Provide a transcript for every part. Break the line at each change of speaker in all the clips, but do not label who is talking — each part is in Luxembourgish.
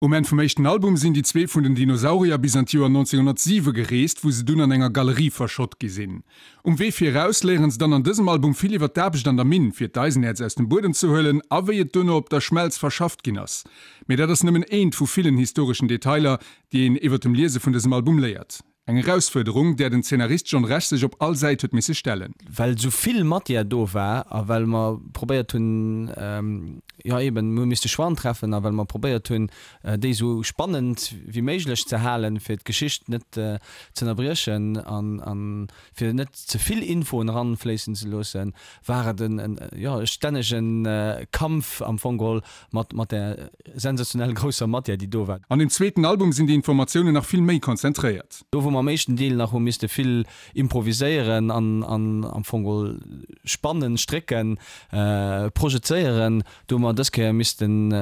Um Enn vum éischten Album sinn déi zwee vun den Dinosaurier bis an d'Joer 1907 gereest, wou se dunn an enger Galerie verschott gi sinn. Um Wee fir eraus léieren se dann an dësem Album vill iwwer d'Aarbecht an der Minn, fir d'Eisenäerz aus dem Buedem ze huelen a wéi et duerno op der Schmelz verschafft ginn ass. Mee dat ass nëmmen eent vu villen historeschen Detailer, déi een iwwer dem Liese vun dësem Album léiert. Eng Erausfuerderung, där den Zeenarist John Rech sech op all Säit huet misse stellen.
Well esou vill Matière do war a well mer probéiert hunn, jo eben, mir hu misste Choixen treffen a well mer probéiert hunn, déi esou spannend wéi méiglech ze halen, fir d'Geschicht net z'ënnerbriechen an fir net ze vill Infoen eranfléissen ze loossen, war et en, jo, e stännege Kampf am Fong geholl mat, mat där sensationell grousser Matière, déi do war.
An dem zweeten Album sinn déi Informatiounen nach vill méi konzentréiert.
Do wou mer am éischten Deel nach hu misste vill improviséieren an, an am Fong geholl spannen, strécken, projezéieren, do hu mer dës Kéier missten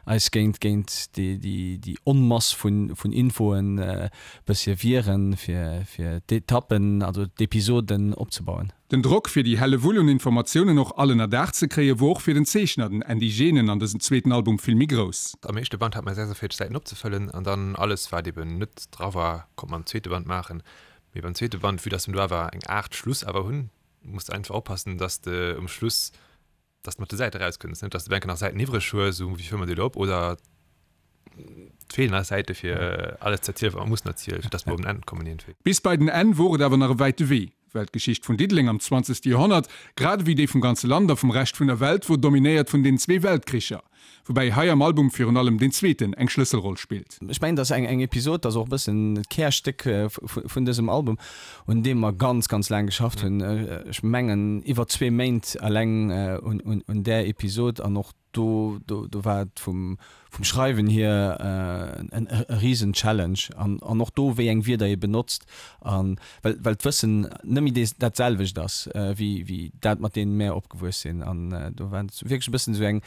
eis géint, géint déi, déi, déi Onmass vun, vun Infoen e bëssche wieren, fir, fir d'Etappen, also d'Episoden opzebauen.
Den Drock fir déi Hellewull un Informatiounen och all ënner Daach ze kréie wor och fir den Zeechner, den Andy Genen, an dësem zweeten Album vill méi grouss.
Am éischte Band hat mer 46 Säiten opzefëllen an dann alles wat eben net dra war konnt mer am zweete Band maachen. Mee beim zweete Band, vue dass mer do awer eng Aart Schluss awer hunn, muss de einfach oppassen, dass de um Schluss dass de mat de Säite rauskënns, net dass de enke nach Säiten iwwreg hues, esou wéi fëlle mer déi elo op oder et feelen nach Säite fir alles ze erzielen, wat mer mussen erzielen, fir dass mer op en Enn kommen iergendwéi.
Bis bei den Enn wor et awer nach e wäite Wee, well d'Geschicht vun Diddeleng am zwanzegste Joerhonnert, grad ewéi déi vum ganze Land a vum Rescht vun der Welt, wor dominéiert vun den zwee Weltkricher. Woubäi hei am Album virun allem deen zweeten eng Schlësselroll spillt.
Ech mengen, dass eng Episod, dat ass och e bëssen d'Kärstéck vun dësem Album, un deem mer ganz, ganz laang geschafft hunn. Ech mengen iwwer zwee Méint eleng un där Episod an och do, do war et vum Schreiwen hier e risen Challenge an och do, wéi eng Wierder ee benotzt an well, well d'Wëssen net méi dat selwecht ass wéi dat, mat deem mär opgewuess sinn. An do war et wierklech e bëssen esou eng,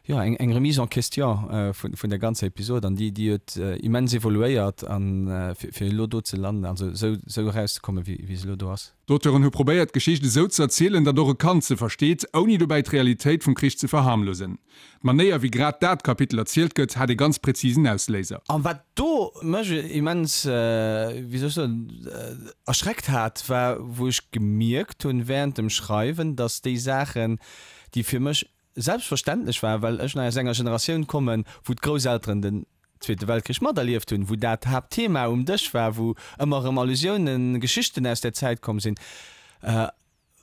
jo, eng, eng Remise en question vun, vun der ganzer Episod an déi, déi huet immens evoluéiert an fir, fir elo do ze landen, also esou, esou erauszekommen, wéi, wéi se elo do ass.
D'Auteuren hu probéiert, d'Geschicht esou ze erzielen, datt och e Kand se versteet, ouni dobäi d'Realitéit vum Krich ze verharmlosen. D'Manéier, wéi grad dat Kapitel erzielt gëtt, hat ee ganz präzisen Ausléiser.
An wat do mech immens, wéi soll ech soen, erschreckt hat, war, wou ech gemierkt hunn während dem Schreiwen, datt déi Saachen, déi fir mech selbstverständlech war, well ech nach aus enger Generatioun kommen, wou d'Grousselteren den Zweete Weltkrich materlieft hunn, wou dat Haaptthema um Dësch war, wou ëmmer erëm Allusiounen, Geschichten aus där Zäit komm sinn.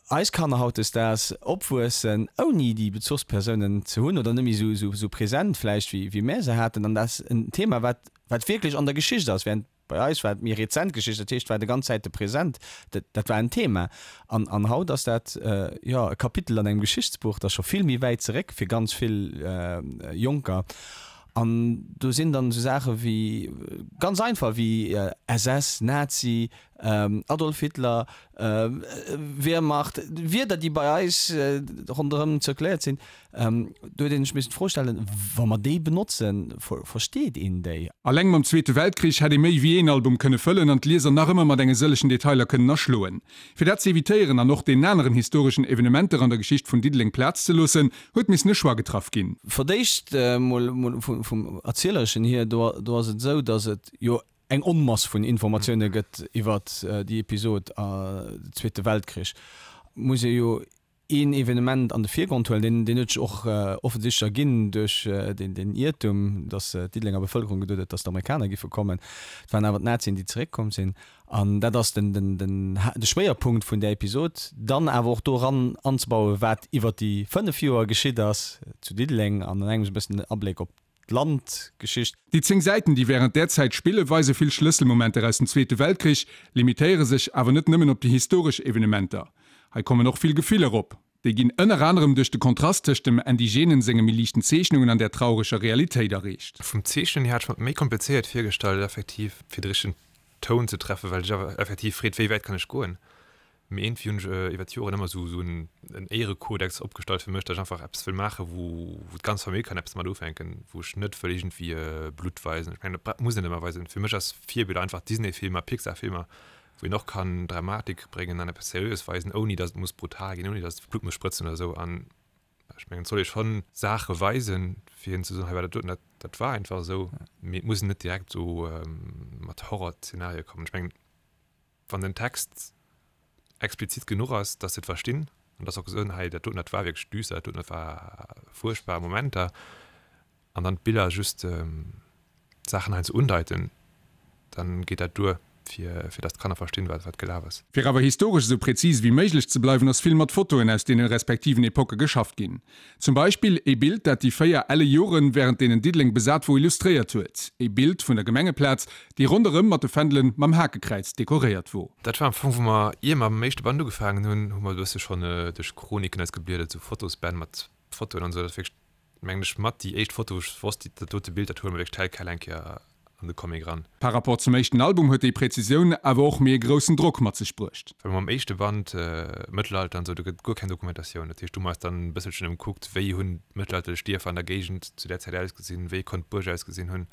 Eis Kanner hautdesdaags opwuessen, ouni déi Bezuchspersounen ze hunn oder net méi esou present vläicht, wéi mär se haten. An dat ass en Thema, wat wat wierklech an der Geschicht ass, während bei eis war et méi rezent Geschicht, dat heescht, war de ganz Zäite present, dat dat war en Thema. An an haut ass dat, jo, e Kapitel an engem Geschichtsbuch, dat ass scho vill méi wäit zeréck fir ganz vill Jonker. An do sinn dann esou Saache wéi, ganz einfach, wéi SS, Nazi, Adolf Hitler, Wehrmacht, Wierder, déi bei eis ronderëm zirkuléiert sinn. Do huet een sech missen d'Fro stellen, Wa mer déi benotzen, versteet een déi?
Alleng mam Zweete Weltkrich hätt ee méi wéi een Album kënne fëllen an d'Lieser nach ëmmer mat enge sëllegen Detailer kënnen erschloen. Fir dat ze evitéieren an och deenen aneren historeschen Evenementer an der Geschicht vun Diddeleng Plaz ze loossen, huet missen e Choix getraff ginn.
Fir d'éischt mol vum Erzielereschen hier, do ass et esou, datt et jo eng Onmass vun Informatioune gëtt iwwert déi Episod, de Zweete Weltkrich, muss ee jo een Evenement an de Virgrond huelen, deen huet sech och offensichtlech erginn duerch deen Iertum, datt d'Diddelenger Bevëlkerung geduet huet, datt d'Amerikaner giffe kommen. Et waren awer d'Nazien, déi zeréckkomm sinn. An dat ass den de Schwéierpunkt vun där Episod. Dann awer och do eran anzebauen, wat iwwer déi 5 Joer geschitt ass zu Diddeleng an an engems e bëssen den Abléck op d'Landgeschicht.
Déi 10 Säiten, déi wärend där Zäit spillen, weise vill Schlësselmomenter aus dem Zweete Weltkrich, limitéiere sech awer net nëmmen op déi historesch Evenementer. Hei kommen och vill Gefiller op. Déi ginn ënner anerem duerch de Kontrast tëscht dem Indigenen senge méi liichten Zeechnungen an där traureger Realitéit erreecht.
Vum Zeechnen hier hat ech mer et méi komplizéiert virgestallt, effektiv fir de richtegen Toun ze treffen, well ech awer effektiv freet, wéi wäit kann ech goen. Mee iergendwéi hunn ech iwwer d'Joren ëmmer esou esou en Éierekodex opgestallt fir mech, datt ech einfach eppes wëll maachen, wou wou d'ganz Famill kann eppes mat ufänken, wou ech net wëll iergendwéi Blutt weisen. Ech mengen, dat muss een net ëmmer weisen. Fir mech ass Virbild einfach Disney-Filmer, Pixar-Filmer, wou een och kann Dramatik bréngen an eppes Seriöes weisen, ouni datt et muss brutal ginn, ouni datt Blutt muss sprëtzen oder esou. An ech mengen, et soll ee schonn Saache weisen, fir hinnen ze soen, hei war dat doten, dat. Dat war einfach esou. Mee et muss een net direkt esou mat Horrorzenarie kommen. Ech mengen, wann den Text explizit genuch ass, dass se et verstinn an dass se och soen, hei dat doten, dat war wierklech düster, dat doten, dat war fuerchtbar Momenter, an dann d'Biller just d'Saachen heiansdo undeiten, dann geet dat duer, fir fir dass d'Kanner verstinn, wat wat gelaf ass.
Fir awer historesch esou präzis ewéi méiglech ze bleiwen, ass vill mat Fotoen aus deene respektiven Epocke geschafft ginn. Zum Beispill ee Bild, dat déi 4 elle Joren, wärend deenen Diddeleng besat wor, illustréiert huet. Ee Bild vun der Gemengeplaz, déi ronderëm mat de Fändelen mam Hakekräiz dekoréiert wor.
Dat war am Fong, wou mer, ier mer mam éischte Band ugefaangen hunn, hu mer e bësse schonn duerch Chroniken eis gebliedert, esou Fotosbänn mat Fotoen an esou. Dat ass wierklech mengen ech, mat déi éischt Foto, wou ech wosst, dat dote Bild, dat huele mer wierklech tel quel eng Kéier an de Comic eran.
Par rapport zum éischten Album huet déi Präzisioun awer och méi e groussen Drock mat sech bruecht.
Well mam éischte Band, Mëttelalter an esou, do gëtt et guer keng Dokumentatioun. Dat heescht, do hu mer eis dann e bësselchen ëmkuckt, wéi hunn d'mëttelalterlech Dierfer an der Géigend zu där Zäit ausgesinn, wéi konnt d'Buerg ausgesinn hunn.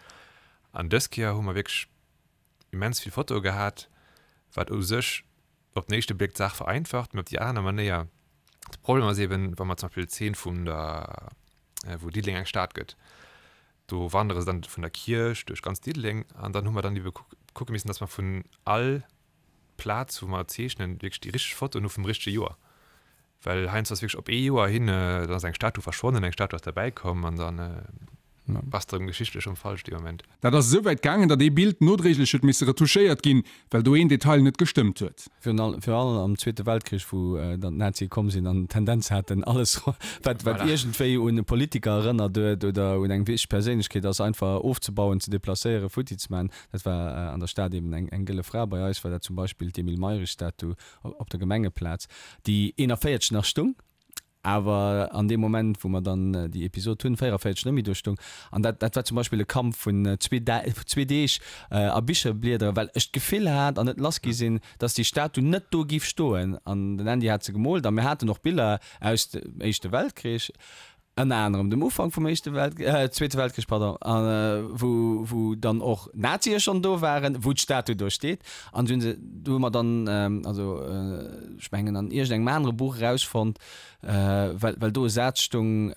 An dës Kéier hu mer wierklech immens vill Fotoe gehat, wat u sech op den éischte Bléck d'Saach vereinfacht, mee op déi aner Manéier de Problem ass eben, wa mer zum Beispill d'Zeen vun der, wou Diddeleng eng Stad gëtt, do wandere se dann vun der Kierch duerch ganz Diddeleng an dann hu mer dann ebe kucke missen, dass mer vun all Plaz, wou mer zeechnen, wierklech déi richteg Fotoen hu vum richtege Joer. Well heiansdo ass wierklech op ee Joer hin, dann ass eng Statu verschwonnen, eng Statu ass derbäi komm an dann bass de erëm geschichtlech erëm falsch dee Moment.
Dat ass esou wäit gaangen, datt ee Bild nodréiglech huet misse retouchéiert ginn, well do een Detail net gestëmmt huet.
Virun allem am Zweete Weltkrich, wou dann d'Nazie komm sinn an d'Tendenz haten, alles wat wat iergendwéi un e Politiker erënnert huet oder un eng wichteg Perséinlechkeet ass, einfach ofzebauen, ze deplacéieren, futti ze maachen. Dat war an der Stad eben eng gëlle Fra. Bei eis war dat zum Beispill d'Emile Mayrisch-Statu op der Gemengeplaz, déi 41 nach stung, awer an deem Moment, wou mer dann déi Episod hunn, 44 net méi do stung. An dat, dat war zum Beispill e Kampf vun zwee, zwee Deeg a Bicher bliederen, well ech d'Gefill hat an net lass gi sinn, dass déi Statu net do giff stoen. An den Andy hat se gemoolt a mir haten och Biller aus dem Éischte Weltkrich. Ënner anerem dem Ufank vum Éischte Welt, Zweete Weltkrich, pardon, wou, wou dann och Nazie schonn do waren, wou d'Statu do steet. An du hunn se, do hu mer dann, also ech mengen an iergendengem anere Buch erausfonnt, well, well do e Saz stung,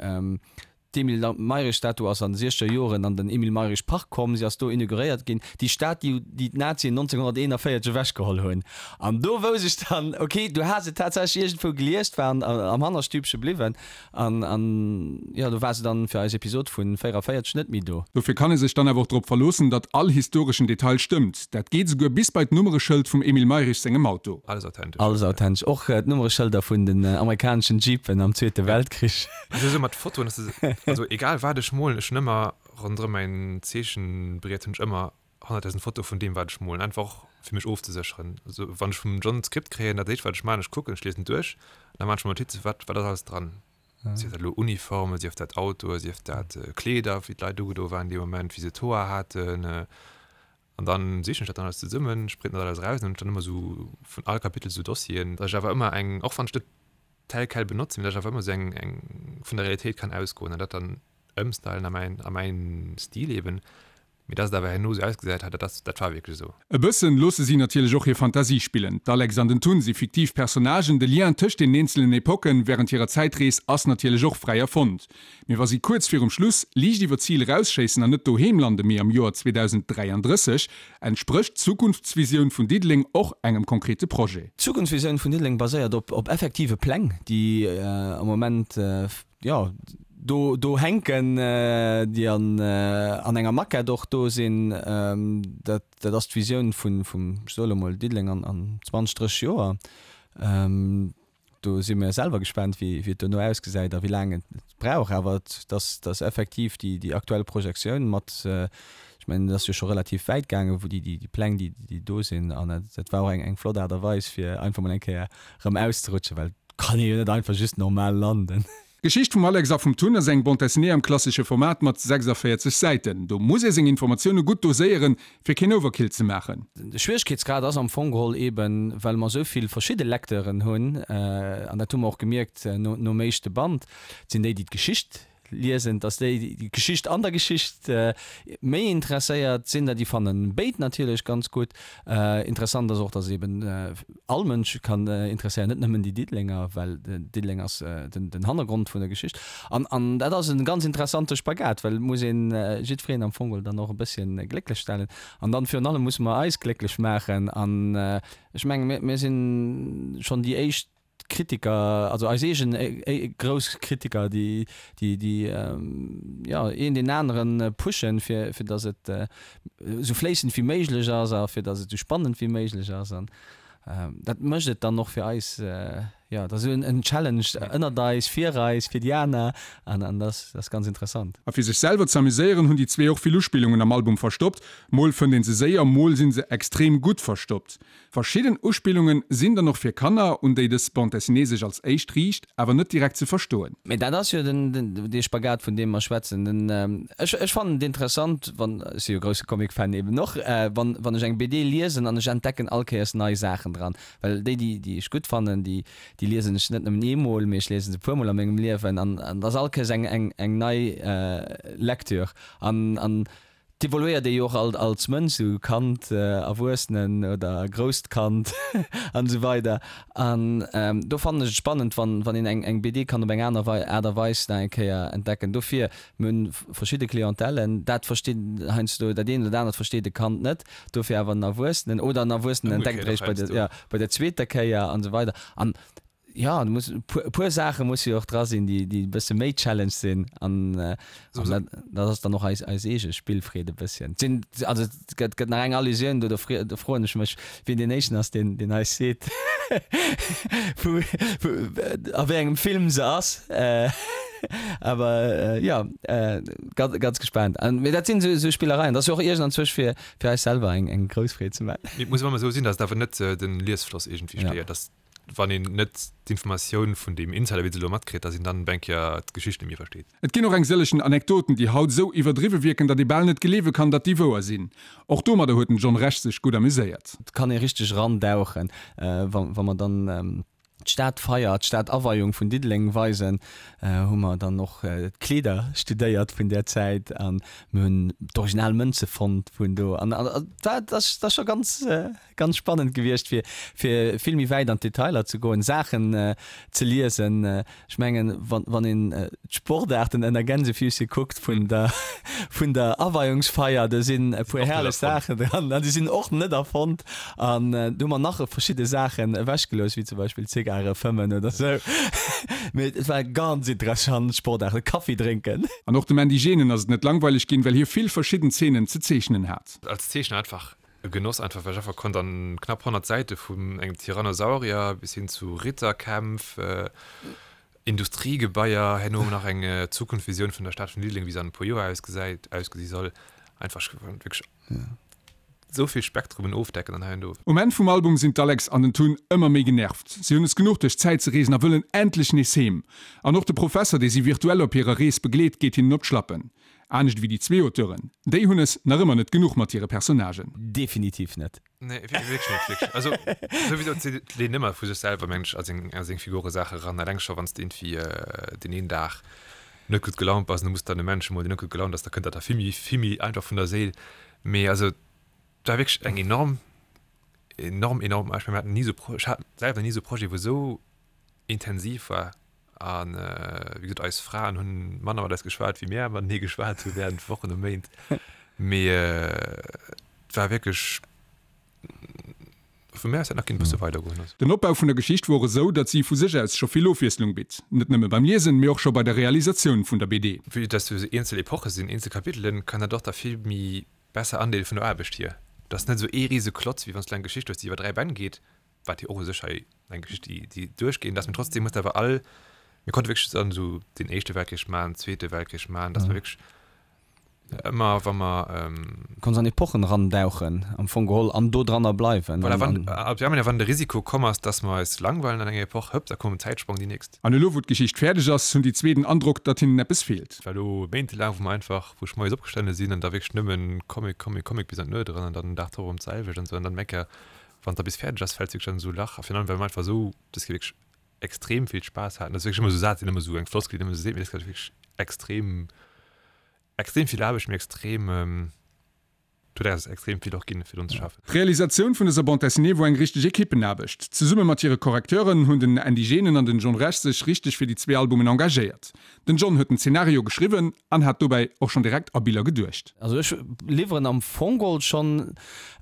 D'Emile Mayrisch-Statu ass an de siechzeger Joren an den Emile Mayrisch-Park komm, si ass do inauguréiert ginn, déi Statu, déi d'Nazien 1941 ewechgeholl hunn. An do wousst ech dann, okay, du has et tatsächlech iergendwou gelies, 't war am Hannerstübche bliwwen. An, an jo, do war se dann fir eis Episod vun 44 net méi do.
Dofir kann ee sech dann awer och drop verloossen, datt all historeschen Detail stëmmt. Dat geet esouguer bis bei d'Nummereschëld vum Emile Mayrisch sengem Auto.
Alles authentesch.
Alles authentesch. Och d'Nummereschëlder vun den amerikaneschen Jeepen am Zweete Weltkrich.
Also esou mat Fotoen, ass es, also egal wat ech molen, ech hunn ëmmer ronderëm mäin Zeechenbriet hunn ech ëmmer 100.000 Fotoe vun deem wat ech molen, einfach och fir mech ofzesécheren. Also wann ech vum John d'Skript kréien, dat éischt wat ech maachen, ech kucken, ech liesen duerch an da maachen ech mer Notizen, wat wat ass alles dran. Sief dat elo Uniformen, sief dat Autoe, sief dat Kleeder, wéi d'Leit ugedo waren dee Moment, wéi se d'Hoer haten. An dann sichen ech dat dann alles zesummen, ech printen dat alles eraus an hunn ech dann ëmmer esou vun all Kapitel esou Dossieren, datt ech awer ëmmer eng, och wann ech net tel quel benotzen, mee datt ech awer ëmmer esou eng eng vun der Realitéit kann ausgoen an dat dann ëmstylen a mäin a mäin Stil eben. Mee dass et awer herno esou ausgesäit hat, dat ass, dat war wierklech esou.
E bëssen loosse si natierlech och hir Fantasie spillen. D'Alex an den Tun si fiktiv Personnagen, de Lien tëscht den eenzelen Epocken wärend hirer Zäitrees ass natierlech och fräi erfonnt. Mee wa si kuerz virum Schluss liicht iwwer d'Zil erausschéissen an net doheem lande mee am Joer 2033, entsprécht d'Zukunftsvisioun vun Diddeleng och engem konkrete Projet.
D'Zukunftsvisioun vun Diddeleng baséiert op effektive Pläng, déi am Moment jo, do, do hänken, déi an, an enger Maquette och do sinn. Dat, dat ass d'Visioun vun, vum, ech soe lo mol, Diddeleng an, an 20, 30 Joer. Do si mir selwer gespaant, wéi, wéi et dono ausgesäit a wéi laang et brauch. Awer et ass, et ass effektiv déi, déi aktuell Projektioun mat, ech mengen, et ass jo scho relativ wäit gaangen, wou déi, déi, déi Pläng, déi, déi do sinn. An dat, dat war och eng, eng flott Aart a Weis, fir einfach mol eng Kéier erëm auszerutschen, well et kann ee jo net einfach just normal landen.
D'Geschicht vum Alex a vum Tun ass eng Bande dessinée am klassesche Format mat 46 Säiten. Do muss ee seng Informatioune gutt doséieren, fir keen Overkill ze maachen.
De Schwieregkeetsgrad ass am Fong geholl eben, well mer esou vill verschidde Lecteuren hunn, an dat hu mer och gemierkt nom éischte Band, et sinn déi, déi d'Geschicht. Liesen, dass déi déi Geschicht an der Geschicht méi interesséiert sinn. Déi fannen béid natierlech ganz gutt. Interessant ass och, dass et eben all Mënsch kann interesséieren, net nëmmen déi Diddelenger, well Diddeleng ass den Hannergrond vun der Geschicht. An an dat ass e ganz interessante Spagat, well et muss een jiddwereen am Fong dann och e bësschen glécklech stellen. An dann virun allem musse mer eis glécklech maachen. An ech mengen, mir mir sinn schonn déi éischt, Kritiker, also eis eegen grouss Kritiker, déi, déi, déi, jo, een deen anere pushen, fir, fir datt et esou fléissend wéi méiglech ass a fir datt et esou spannend wéi méiglech ass. An dat mécht et dann och fir eis, jo, dat ass esou en Challenge ënnert eis, fir eis, fir déi aner an, an dat ass ganz interessant.
A fir sech selwer ze amuséieren, hunn déi zwee och vill Uspillungen am Album verstoppt. Mol fënnt een se séier, mol sinn se extrem gutt verstoppt. Verschidden Uspillungen sinn dann och fir Kanner, un déi dës Bande dessinée sech als éischt riicht, awer net direkt ze verstoen.
Mee dat ass jo den, dee Spagat, vun deem mer schwätzen. Den, ech, ech fannen et interessant, wann, ech si jo grousse Comic-Fan eben och, wann, wann ech eng BD liesen an ech entdecken all Kéiers nei Saachen dran. Well déi, déi, déi ech gutt fannen, déi, déi liesen ech net nëmmen eemol, mee ech liesen se e puermol a mengem Liewen an, an et ass all Kéiers eng, eng, eng nei Lecture. An, an D'evoluéiert ee jo och alt als Mënsch, sou Kand, Erwuessenen oder grousst Kand an esou weider. An do fannen ech et spannend, wann wann een eng eng BD kann op eng aner Aart a Weis nach eng Kéier entdecken. Dofir, mir hunn verschidde Clientèlen, dat versteet heiansdo dat eent oder dat anert versteet e Kand net, dofir awer en Erwuessenen oder en Erwuessenen entdeckt et eréischt bei der jo bei der zweeter Kéier an esou weider. An Jo, do muss e puer, e puer Saache musse jo och dra sinn, déi, déi e bësse méi Challenge sinn. An, an dat, dat ass dann och eis, eis eege Spillfreed e bësschen. Et sinn, also et gëtt, gëtt nach eng Allusioun do, do fre, do froen ech mech, wien deen éischten ass, deen, deen eis seet, wou, wou, a wéi engem Film se ass. Awer jo, ganz, ganz gespaant. An, mee dat sinn esou, esou Spillereien. Dat ass jo och iergendanzwousch fir, fir eis selwer eng, eng grouss Freed ze maachen.
Mee et muss awer ëmmer esou sinn, datt et awer net den Liesfloss iergendwéi stéiert, datt wann een net d'Informatioun vun deem Insider wéi se elo matkritt, dass een dann op eng Kéier d'Geschicht net méi versteet.
Et ginn och eng sëllechen Anekdoten, déi haut esou iwwerdriwwe wierken, datt ee bal net gleewe kann, datt déi wouer sinn. Och domadder huet den John Rech sech gutt amuséiert.
Et kann ee richteg erandauchen, wa mer dann d'Stadfeier, d'Stadaweiung vun Diddeleng weisen, hu mer dann och d'Kleeder studéiert vun där Zäit a mir hunn d'original Mënze fonnt vun do an dat ass scho ganz Ganz spannend gewiescht fir fir vill méi wäit an d'Detailer ze goen, Saachen ze liesen. Ech mengen wann wann een d'Sportaarten ënner Gänsefüßchen kuckt vun der vun der Aweiungsfeier, do sinn e puer herrlech Saachen dran an déi sinn och net erfonnt. An do hu mer nach verschidde Saachen ewechgelooss, wéi zum Beispill Zigare fëmmen oder sou. Mee et war ganz interessant, Sportaarten, Kaffi drénken.
An och dem Andy Genen ass et net langweileg ginn, well hie vill verschidden Zeenen ze zeechnen hat.
Als Zeechner einfach E Genoss einfach, well ech einfach konnt an knapp 100 Säite vun engem Tyrannosaurier bis hin zu Ritterkämpf, Industriegebaier, herno nach eng Zukunftsvisioun vun der Stad vun Diddeleng, wéi se an e puer Joer ausgesäit, ausgesi soll, einfach ech konnt wierklech esou vill Spektrumen ofdecken an hei an do.
Um Enn vum Album sinn d'Alex an den Tun ëmmer méi genervt. Si hunn es genuch duerch d'Zäit ze reesen a wëllen endlech nees heem. An och de Professer, dee si virtuell op hirer Rees begleet, geet hinnen op d'Schlappen. Anescht ewéi déi zwee Auteuren, déi hunn es nach ëmmer net genuch mat hire Personnagen.
Definitiv net.
Nee, wierklech net, wierklech. Also souwisou, et leent ëmmer vu sech selwer, mengen ech, a seng, a seng Figure Saache ran. Eleng scho wann s de iergendwéi deen een Dag net gutt gelaunt bass an du muss dann e Mensch emol, deen net gutt gelaunt ass, da kënnt dat da vill méi, vill méi einfach vun der Séil. Mee also et war wierklech eng enorm, enorm, enorm, ech mengen, mir haten ni esou, ech hat selwer ni esou e Projet, wou esou intensiv war an wéi gesot eis Fraen hunn manner mat eis geschwat wéi mär matenee geschwat hu während Wochen a Méint, mee et war wierklech vu mär aus hätt nach kinne bësse weider goen.
Den Opbau vun der Geschicht wor esou, datt si vu sech aus scho vill Ofwiesslung bitt, net nëmme beim Liesen, mee och scho bei der Realisatioun vun der BD.
Vue dass do esou eenzel Epoche sinn, eenzel Kapitelen, kann dat och da vill méi besser andeele vun der Aarbecht hier. Et ass net esou ee rise Klotz, wéi wann s du eng Geschicht hues, déi iwwer 3 Bänn geet, wat jo och u sech hei eng Geschicht déi déi duerchgeen ass, mee trotzdem hues de awer all, mir konnte wierklech dann esou den éischte Weltkrich maachen, den zweete Weltkrich maachen, dass mer wierklech ëmmer wa mer.
Konns an Epochen erandauchen am Fong geholl an do dranner bleiwen.
Voilà, wann, ab ja, wann de Risiko komm ass, dass mer eis langweilen an enger Epoch, hëpp, da koum en Zäitsprong, déi nächst.
An elo wou d'Geschicht fäerdeg ass, hunn déi zwee den Androck, datt hinnen eppes feelt.
Et war elo méintelaang, wou mer einfach, wou ech moies opgestane sinn an da wierklech nëmmen Comic, Comic, Comic bis an d'Nuet eran an dann den Dag drop erëm d'selwecht an esou an dann eng Kéier Wann et da bis fäerdeg ass, fält wierklech an esou e Lach. A virun allem, well mer einfach esou, dass mir wierklech extrem vill Spaass haten. Dat ass wierklech ëmmer esou Saz, deen ëmmer esou eng Floskel, déi een ëmmer esou seet, mee dat ass wierklech. extrem extrem vill Aarbecht, mee extrem et huet eis extrem vill och ginn, fir drun ze schaffen.
D'Realisatioun vun dëser Bande dessinée wor eng richteg Ekippenaarbecht. Zesumme mat hire Correcteuren hunn den Andy Genen an den John Rech sech richteg fir déi zwee Albumen engagéiert. Den John huet den Zenario geschriwwen an hat dobäi och schonn direkt a Biller geduecht.
Also ech liwweren am Fong geholl schonn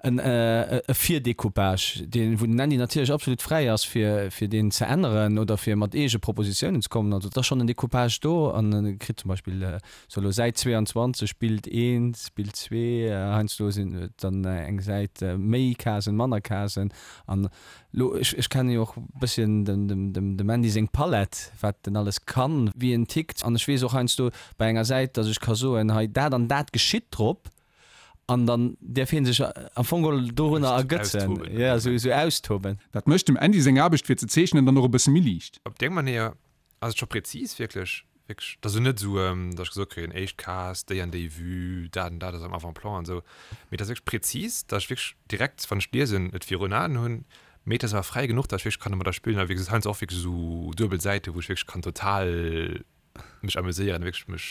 en e Virdecoupage, deen, wou den Andy natierlech absolut fräi ass fir fir deen ze änneren oder fir mat eege Propositiounen ze kommen. Also et ass schonn en Decoupage do an e kritt zum Beispill sou elo Säit 22, Bild 1, Bild 2, heiansdo sinn et dann eng Säit méi Casen, manner Casen an Lo, ech, ech kenne jo och bësschen dem, dem, dem, dem Andy seng Palett, wat en alles kann, wéi en tickt. An ech weess och heiansdo bei enger Säit, datt ech ka soen, hei dat an dat geschitt drop, an dann däerf hie sech am Fong geholl dorunner ergötzen, jo, esou, esou austoben.
Dat mécht dem Andy seng Aarbecht fir ze zeechnen dann och e bësse méi liicht.
Op déi eng Manéier Ass et scho präzis wierklech? Wierklech, et ass elo net esou, datt ech gesot kréien, éischt Case, déi an déi Vue, dat an dat ass am Avant-plan an esou, mee et ass wierklech präzis, datt ech wierklech direkt, wann ech liesen, et virun Aen hunn, mee et ass awer fräi genuch, datt ech wierklech kann domadder spillen a wéi gesot heiansdo och wierklech esou duebel Säiten, wou ech wierklech kann total mech amuséieren, wierklech mech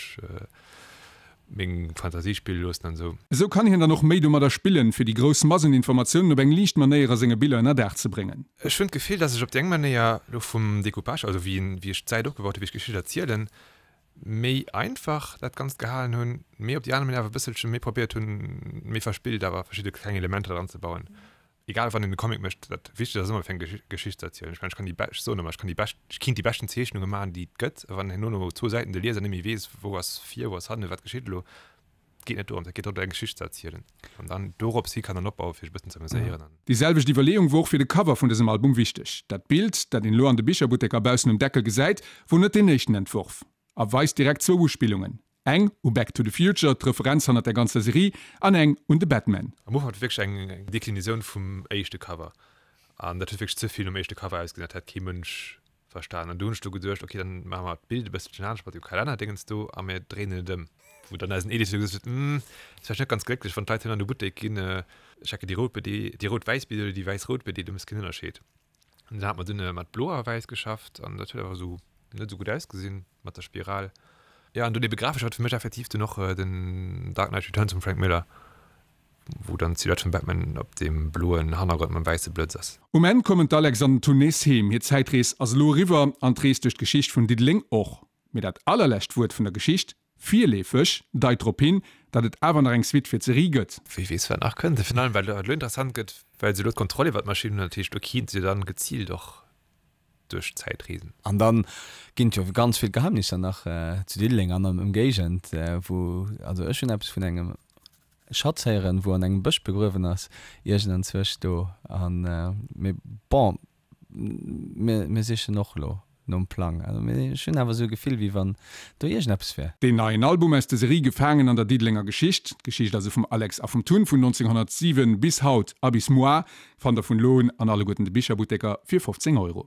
meng Fantasie spille loossen an esou.
Esou kann hien dann och méi domadder spillen, fir déi grouss Mass un Informatiounen op eng liicht Manéier a senge Biller ënner Daach ze bréngen.
Ech hunn d'Gefill, dass ech op déi eng Manéier elo vum Decoupage, also wéi wéi ech d'Säit opgebaut hunn, wéi ech d'Geschicht erzielen, méi einfach dat Ganzt gehalen hunn, mee op déi aner Manéier awer e bësselche méi probéiert hunn, méi verspillt awer verschidde kleng Elementer dran ze bauen. Egal wann een e Comic mécht, dat Wichtegst ass ëmmer fir eng Geschicht ze erzielen. Ech mengen, ech kann déi bescht, ech soen ëmmer, ech kann déi bescht, ech kinnt déi beschten Zeechnunge maachen, déi et gëtt, a wann herno no zwou Säiten de Lieser net méi weess, wou ass vir, wou ass hannen, wat geschitt elo, et geet net dorëms, et geet drëm, eng Geschicht ze erzielen an dann dorops hi kann dann opbauen, fir sech e bëssen ze amuséieren an.
Déi selwecht Iwwerleeung wor och fir de Cover vun dësem Album wichteg. Dat Bild, dat een elo an de Bicherbutteker baussen um Deckel gesäit, wor net deen éischten Entworf a weist direkt zwou Uspillungen. Eng u Back to the Future, d'Referenz hannert der ganzer Serie, an eng un de Batman.
Am Ufank war et wierklech eng Deklinisioun vum éischte Cover an dat huet wierklech ze vill nom éischte Cover ausgesinn, dat hätt kee Mënsch verstan. An du hunn ech du geduecht, ok, dann maache mer d'Bild e bësselchen anescht mat dem Kalennerdéngens do a mir dréinen et ëm. Wou dann eisen Editeur gesot huet, Hm, ass vläicht net ganz glécklech, wann d'Leit herno an de Buttek ginn, checken déi rout BD, déi rout-wäiss BD oder déi wäiss-rout BD, do méchs keen Ënnerscheed. An dann hat mer dunn mat blo a wäiss geschafft an dat huet awer esou net esou gutt ausgesinn mat der Spiral. Jo, an dunn ebe grafesch war et fir mech effektiv dunn och den Dark Knight Returns vum Frank Miller, wou dann d'Silhouette vum Batman op deem bloen Hannergrond mam wäisse Blëtz ass.
Um Enn kommen d'Alex an den Tun nees heem. Hir Zäitrees ass elo eriwwer an d'Rees duerch d'Geschicht vun Diddeleng och. Mee dat allerlescht Wuert vun der Geschicht, virleefeg, deit drop hin, datt et awer nach eng Suite fir d'Serie gëtt.
Wie weess, wat nach kënnt. Virun allem, well et elo interessant gëtt, well se elo d'Kontroll iwwer d'Maschinn hunn. Dat heescht, elo kinnte se dann geziilt och duerch d'Zäit reesen.
An dann ginn et jo ganz vill Geheimnisser nach zu Diddeleng an an Ëmgéigend, wou, also ech hunn eppes vun engem Schatz héieren, wou an engem Bësch begruewen ass, iergendanzwousch do. An, mee bon, mir, mir sichen och elo nom Plang. Also mee ech hunn awer esou e Gefill, wéi wann do iergendeppes wär.
Deen neien Album aus der Serie Gefaangen an der Diddelenger Geschicht, d'Geschicht also vum Alex a vum Tun vun 1907 bis haut a bis muar, fannt der vun elo un an alleguerten de Bicherbutteker fir 15 Euro.